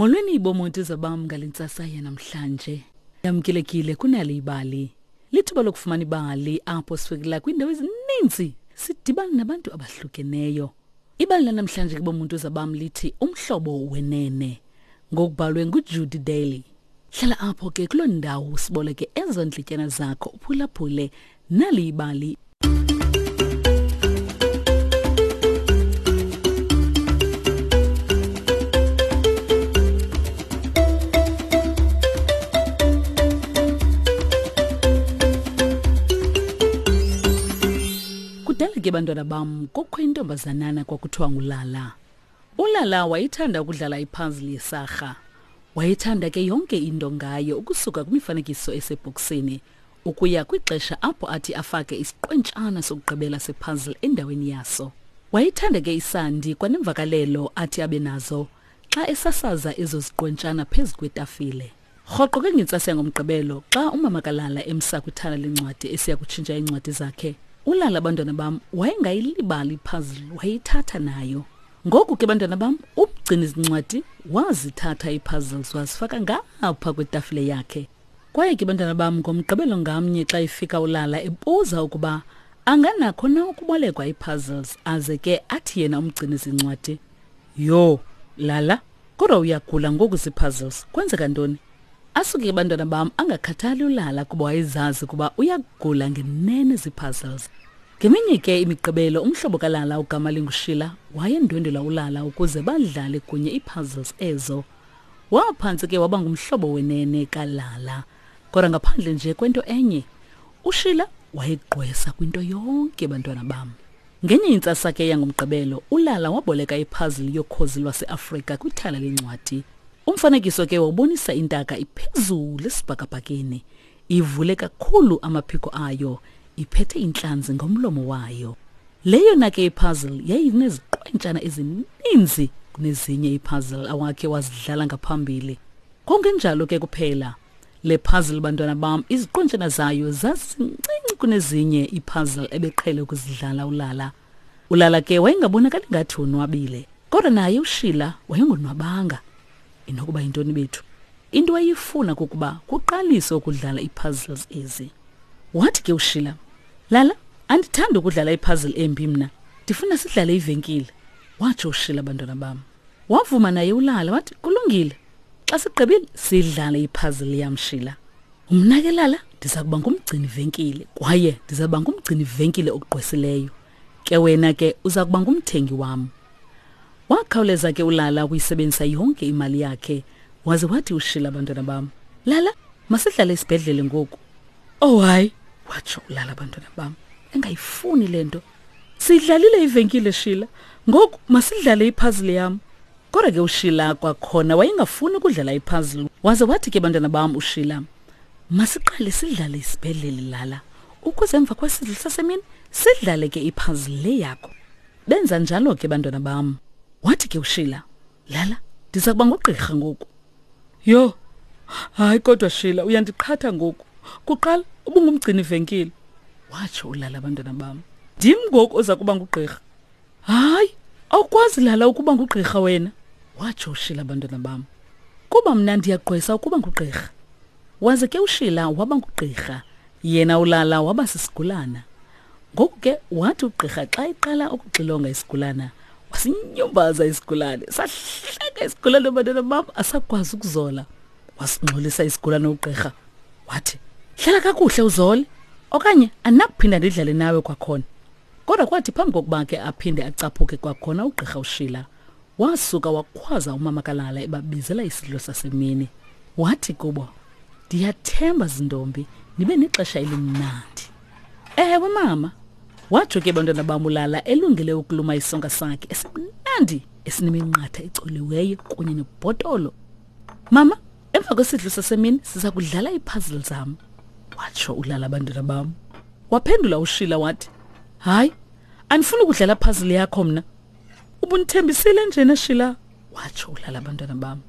Molweni bomonti zabam ngale ntsasa yanamhlanje. Yamkelekile kunali ibali. Lithuba lokufumana ibali apho sifikela kwiindawo ezininzi sidibana nabantu abahlukeneyo. Ibali lanamhlanje ke bomuntu zabam lithi umhlobo wenene ngokubhalwe nguJudy Daly. Hlala apho ke kuloo ndawo usiboleke ezo ndlityana zakho uphulaphule nali ibali. Kudala ke bantwana bam kukho intombazanana kwakuthiwa ngulala. Ulala wayethanda ukudlala ipuzzle yesarha. Wayethanda ke yonke into ngayo ukusuka kwimifanekiso esebhokisini ukuya kwixesha apho athi afake isiqwentshana sokugqibela sepuzzle endaweni yaso. Wayethanda ke isandi kwanemvakalelo athi abe nazo xa esasaza ezo ziqwentshana phezu kwetafile. Rhoqo ke ngentsasa yangoMgqibelo xa umama kaLala emsa kwithala lencwadi esiya kutshintsha iincwadi zakhe, uLala abantwana bam wayengayilibali ipuzzle wayeyithatha nayo. Ngoku ke bantwana bam umgcini zincwadi wazithatha iipuzzles wazifaka ngapha kwetafile yakhe. Kwaye ke bantwana bam ngoMgqibelo ngamnye xa efika uLala ebuza ukuba anganakho na ukubolekwa iipuzzles aze ke athi yena umgcini zincwadi, Yho, Lala, kodwa uyagula ngoku zii-puzzles kwenzeka ntoni asuke ke bantwana bam angakhathali ulala kuba wayezazi ukuba uyagula ngenene zii-puzzles ngeminye ke imigqibelo umhlobo kalala ugama lingushila wayendwendwela ulala ukuze badlale kunye ii-puzzles ezo waphantsi ke waba ngumhlobo wenene kalala kodwa ngaphandle nje kwento enye ushila wayegqwesa kwinto yonke bantwana bam Ngenye intsasa ke yangoMgqibelo, uLala waboleka iphazili yokhozi lwaseAfrika kwithala lencwadi. Umfanekiso ke wawubonisa intaka iphezulu esibhakabhakeni, ivule kakhulu amaphiko ayo, iphethe intlanzi ngomlomo wayo. Le yona ke ipuzzle yayineziqwentshana ezininzi kunezinye ipuzzle awakhe wazidlala ngaphambili. Kungenjalo ke kuphela. Le puzzle bantwana bam iziqontshana zayo zazincinci kunezinye ipuzzle ebeqhele ukuzidlala ulala. Ulala ke wayengabonakali ngathi wonwabile, kodwa naye uShila wayengonwabanga. Inokuba yintoni bethu? Into ayifuna kukuba kuqaliswe ukudlala iipuzzles ezi. Wathi ke uShila, Lala, andithandi ukudlala ipuzzle embi mna. Ndifuna sidlale ivenkile. Watsho uShila bantwana bam. Wavuma naye ulala wathi kulungile. Xa sigqibile sidlale ipuzzle yam Shila. Mna ke lala ndiza kuba ngumgcini venkile kwaye ndiza kuba ngumgcini venkile ogqwesileyo. Ke wena ke uza kuba ngumthengi wam. Wakhawuleza ke ulala ukuyisebenzisa yonke imali yakhe waze wathi uShila abantwana bam. Lala masidlale isibhedlele ngoku. Oh hayi watsho ulala abantwana bam engayifuni le nto. Sidlalile ivenkile Shila ngoku masidlale ipuzzle yam. Kodwa ke uShila kwakhona wayengafuni ukudlala ipuzzle waze wathi ke bantwana bam uShila masiqale sidlale isibhedlele lala ukuze emva kwesidlo sasemini sidlale ke ipuzzle le yakho. Benza njalo ke bantwana bam. Wathi ke uShila lala ndiza kuba ngugqirha ngoku. Yho hayi kodwa Shila uyandiqhatha ngoku. Kuqala ubungumgcini venkile. Watsho ulala abantwana bam. Ndim ngoku oza kuba ngugqirha. Hayi, awukwazi lala ukuba ngugqirha wena, watsho uShila abantwana bam. Kuba mna ndiyagqwesa ukuba ngugqirha. Waze ke uShila waba ngugqirha, yena ulala waba sisigulana. Ngoku ke wathi ugqirha xa eqala ukuxilonga isigulana, wasinyumbaza isigulane, sahleka isigulane abantwana bam asakwazi ukuzola. Wasingxolisa isigulane ugqirha, wathi, Hlala kakuhle uzole, okanye andinakuphinda ndidlale nawe kwakhona. Kodwa kwathi phambi kokuba ke aphinde acaphuke kwakhona ugqirha uShila, wasuka wakhwaza umama kaLala ebabizela isidlo sasemini. Wathi kubo, Ndiyathemba zintombi nibe nexesha elimnandi. Ewe mama, watsho ke bantwana bam uLala elungele ukuluma isonka sakhe esimnandi esineminqatha ecoliweyo kunye nebhotolo. Mama, emva kwesidlo sasemini siza kudlala iipuzzle zam, watsho uLala bantwana bam. Waphendula uShila wathi, Hayi, andifuni ukudlala puzzle yakho mna. Ubundithembisile njena Shila, watsho uLala abantwana bam.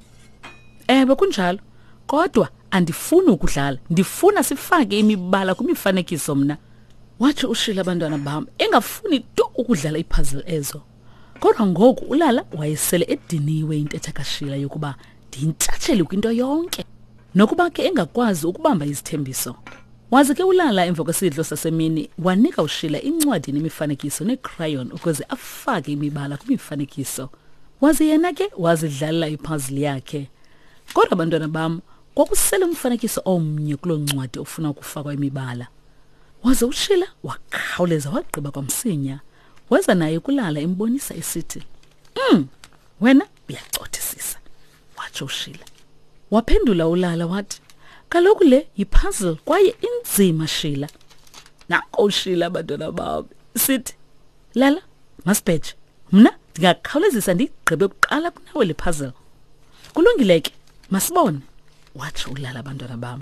Ewe kunjalo, kodwa andifuni ukudlala, ndifuna sifake imibala kwimifanekiso mna. Watsho uShila abantwana bam, engafuni tu ukudlala iipuzzle ezo. Kodwa ngoku uLala wayesele ediniwe intetha kaShila yokuba Ndiyintshatsheli kwinto yonke. Nokuba ke engakwazi ukubamba izithembiso. Waze ke ulala emva kwesidlo sasemini wanika uShila incwadi nemifanekiso neecrayon ukuze afake imibala kwimifanekiso. Waze yena ke wazidlalela ipuzzle yakhe. Kodwa bantwana bam, kwakusele umfanekiso omnye kuloo ncwadi ofuna ukufakwa imibala. Waze uShila wakhawuleza wagqiba kwamsinya. Weza naye kulala embonisa esithi, wena uyacothisisa, watsho uShila. Waphendula ulala wathi, kaloku le yipuzzle kwaye inzima Shila. Nanko uShila abantwana bam sithi, Lala, masibheje. Mna ndingakhawulezisa ndigqibe kuqala kunawe le puzzle. Kulungile ke, masibone, watsho ulala abantwana bam.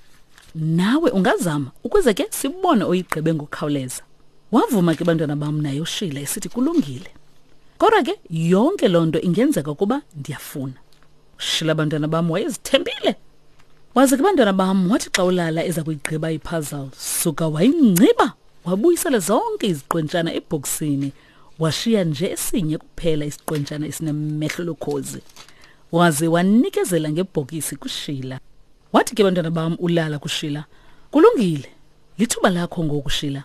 Nawe ungazama ukuze ke sibone oyigqibe ngokukhawuleza. Wavuma ke bantwana bam naye uShila esithi kulungile. Kodwa ke yonke loo nto ingenzeka ukuba ndiyafuna. Ushila bantwana bam wayezithembile. Waze ke bantwana bam wathi xa ulala eza kuyigqiba ipuzzle suka wayingciba wabuyisela zonke iziqwentshana ebhokisini washiya nje esinye kuphela isiqwentshana esinemehlo lokhozi. Waze wanikezela ngebhokisi kuShila. Wathi ke bantwana bam ulala kuShila, kulungile, lithuba lakho ngoku Shila.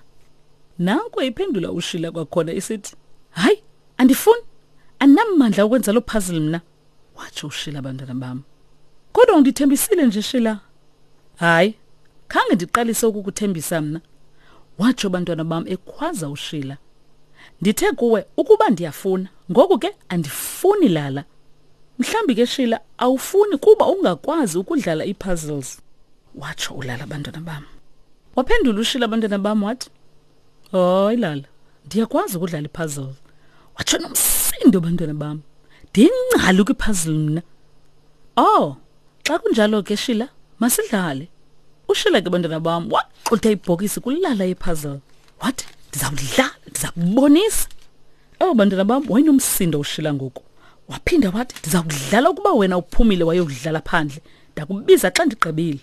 Nanko iphendula uShila kwakhona isithi, hayi, andifuni, andinamandla okwenza loo puzzle mna. Watsho uShila bantwana bam. Kodwa undithembisile nje Shila. Hayi, khange ndiqalise ukukuthembisa mna. Watsho bantwana bam ekhwaza uShila. Ndithe kuwe ukuba ndiyafuna, ngoku ke andifuni lala. Mhlambi ke Shila awufuni kuba ungakwazi ukudlala ii-puzzles. Watsho ulala bantwana bam. Waphendula uShila bantwana bam wathi, hayi lala, ndiyakwazi ukudlala ipuzzle. Watsho nomsindo bantwana bam. Ndingcali kwipuzzle mna. Oh, xa kunjalo ke Shila, masidlale. UShila ke bantwana bam waxutha ibhokisi kulala ipuzzle. Wathi, ndizawudlala, ndiza kubonisa. Oh bantwana bam, wayenomsindo uShila ngoku. Waphinda wathi, ndiza kudlala ukuba wena uphumile wayokudlala phandle. Ndakubiza xa ndigqibile.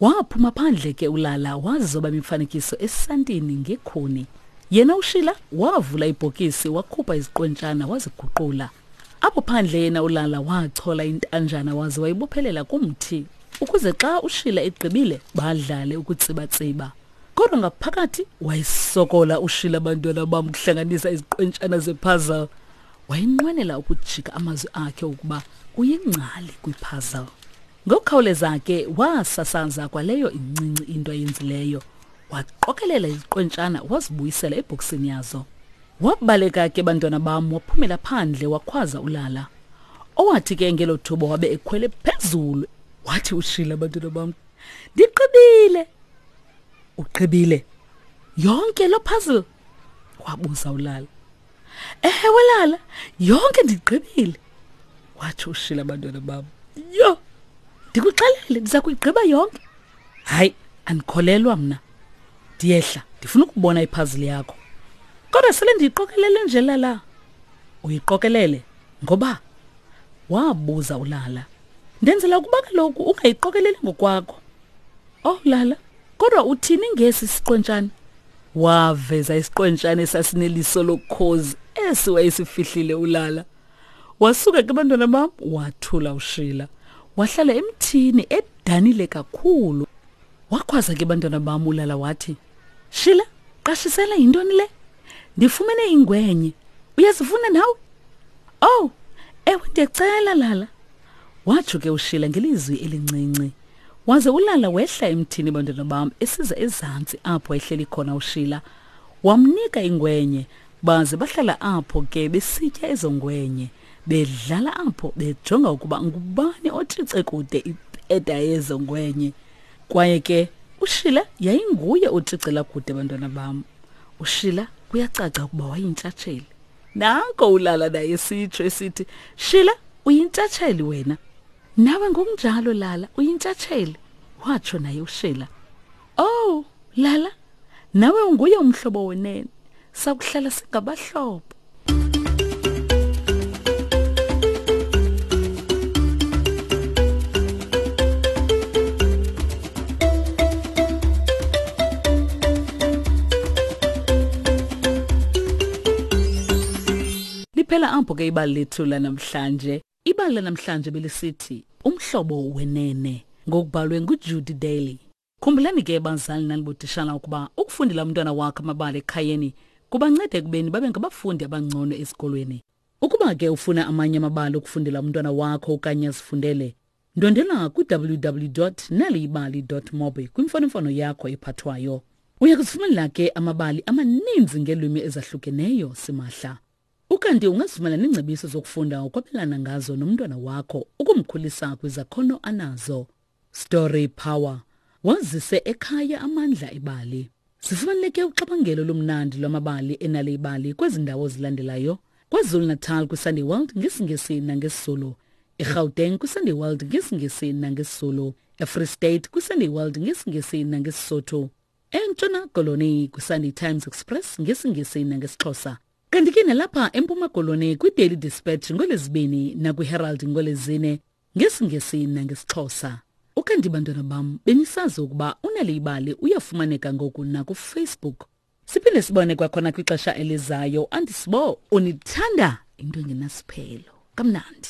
Waphuma phandle ke ulala wazoba imifanekiso esantini ngekhuni. Yena uShila wavula ibhokisi wakhupha iziqwentshana waziguqula. Apho phandle yena ulala wachola intanjana waze wayibophelela kumthi ukuze xa uShila egqibile badlale ukutsibatsiba. Kodwa ngaphakathi wayesokola uShila abantwana bam ukuhlanganisa iziqwentshana zepuzzle. Wayenqwenela ukujika amazwi akhe ukuba uyingcali kwipuzzle. Ngokukhawuleza ke wasasaza kwaleyo incinci into ayenzileyo. Waqokelela iziqwentshana wazibuyisela ebhokisini yazo. Wabaleka ke bantwana bam waphumela phandle wakhwaza ulala. Owathi ke ngelo thuba wabe ekhwele phezulu. Wathi uShila bantwana bam, ndigqibile. Ugqibile yonke lo puzzle? Wabuza ulala. Ewe lala, yonke ndigqibile. Watsho uShila bantwana bam. Yho, ndikuxelele ndiza kuyigqiba yonke. Hayi, andikholelwa mna. Ndiyehla, ndifuna ukubona ipuzzle yakho. Kodwa sele ndiyiqokelele nje lala. Uyiqokelele ngoba? Wabuza ulala. Ndenzela ukuba kaloku ungayiqokeleli ngokwakho. Oh lala, kodwa uthini ngesi siqwentshana? Waveza isiqwentshana esasineliso lokhozi esi wayesifihlile ulala. Wasuka ke bantwana bam wathula uShila. Wahlala emthini edanile kakhulu. Wakhwaza ke bantwana bam ulala wathi, Shila, qashisela yintoni le? Ndifumene ingwenye. Uyazifuna nawe? Oh, ewe ndiyacela lala. Watsho ke uShila ngelizwi elincinci. Waze ulala wehla emthini bantwana bam esiza ezantsi apho ehleli khona uShila. Wamnika ingwenye baze bahlala apho ke besitya ezo ngwenye bedlala apho bejonga ukuba ngubani otshice kude ipeda yezo ngwenye. Kwaye ke uShila yayinguye otshicela kude bantwana bam. UShila kuyacaca ukuba wayintshatsheli. Nanko ulala naye sitsho esithi, Shila uyintshatsheli wena. Nawe ngokunjalo Lala uyintshatsheli, watsho naye uShila. Oh, Lala, nawe unguye umhlobo wenene. Sakuhlala singabahlobo. Liphela apho ke ibali lethu lanamhlanje. Ibali lanamhlanje belisithi Umhlobo Wenene, ngokubhalwe nguJudy Daly. Khumbulani ke bazali nanibotishala ukuba ukufundela umntwana wakho amabali ekhayeni kubanceda ekubeni babe ngabafundi abangcono esikolweni. Ukuba ke ufuna amanye amabali okufundela umntwana wakho okanye azifundele, ndwendela kwi-www naliyibali mobi kwimfonomfono yakho ephathwayo. Uya kuzifumanela ke amabali amaninzi ngeelwimi ezahlukeneyo simahla. Ukanti ungazifumana neengcebiso zokufunda ukwabelana ngazo nomntwana wakho ukumkhulisa kwizakhono anazo. Story Power. Wazise ekhaya amandla ebali. Zifumaneke uxabangelo olumnandi lwamabali enale ibali kwezi ndawo zilandelayo. KwaZulu-Natal kwiSunday World ngesiNgesi nangesiZulu. EGauteng kwiSunday World ngesiNgesi nangesiZulu. EFree State kwiSunday World ngesiNgesi nangeSisotho. ENtshona Koloni kwiSunday Times Express ngesiNgesi nangesiXhosa. Kanti ke nalapha eMpuma Koloni kwiDaily Dispatch ngolwezibini nakwiHerald ngolwezine ngesiNgesi nangesiXhosa. Ukanti bantwana bam benisazi ukuba uNal'ibali uyafumaneka ngoku nakuFacebook. Siphinde sibone kwakhona kwixesha elizayo. Andisibo unithanda into engenasiphelo. Kamnandi.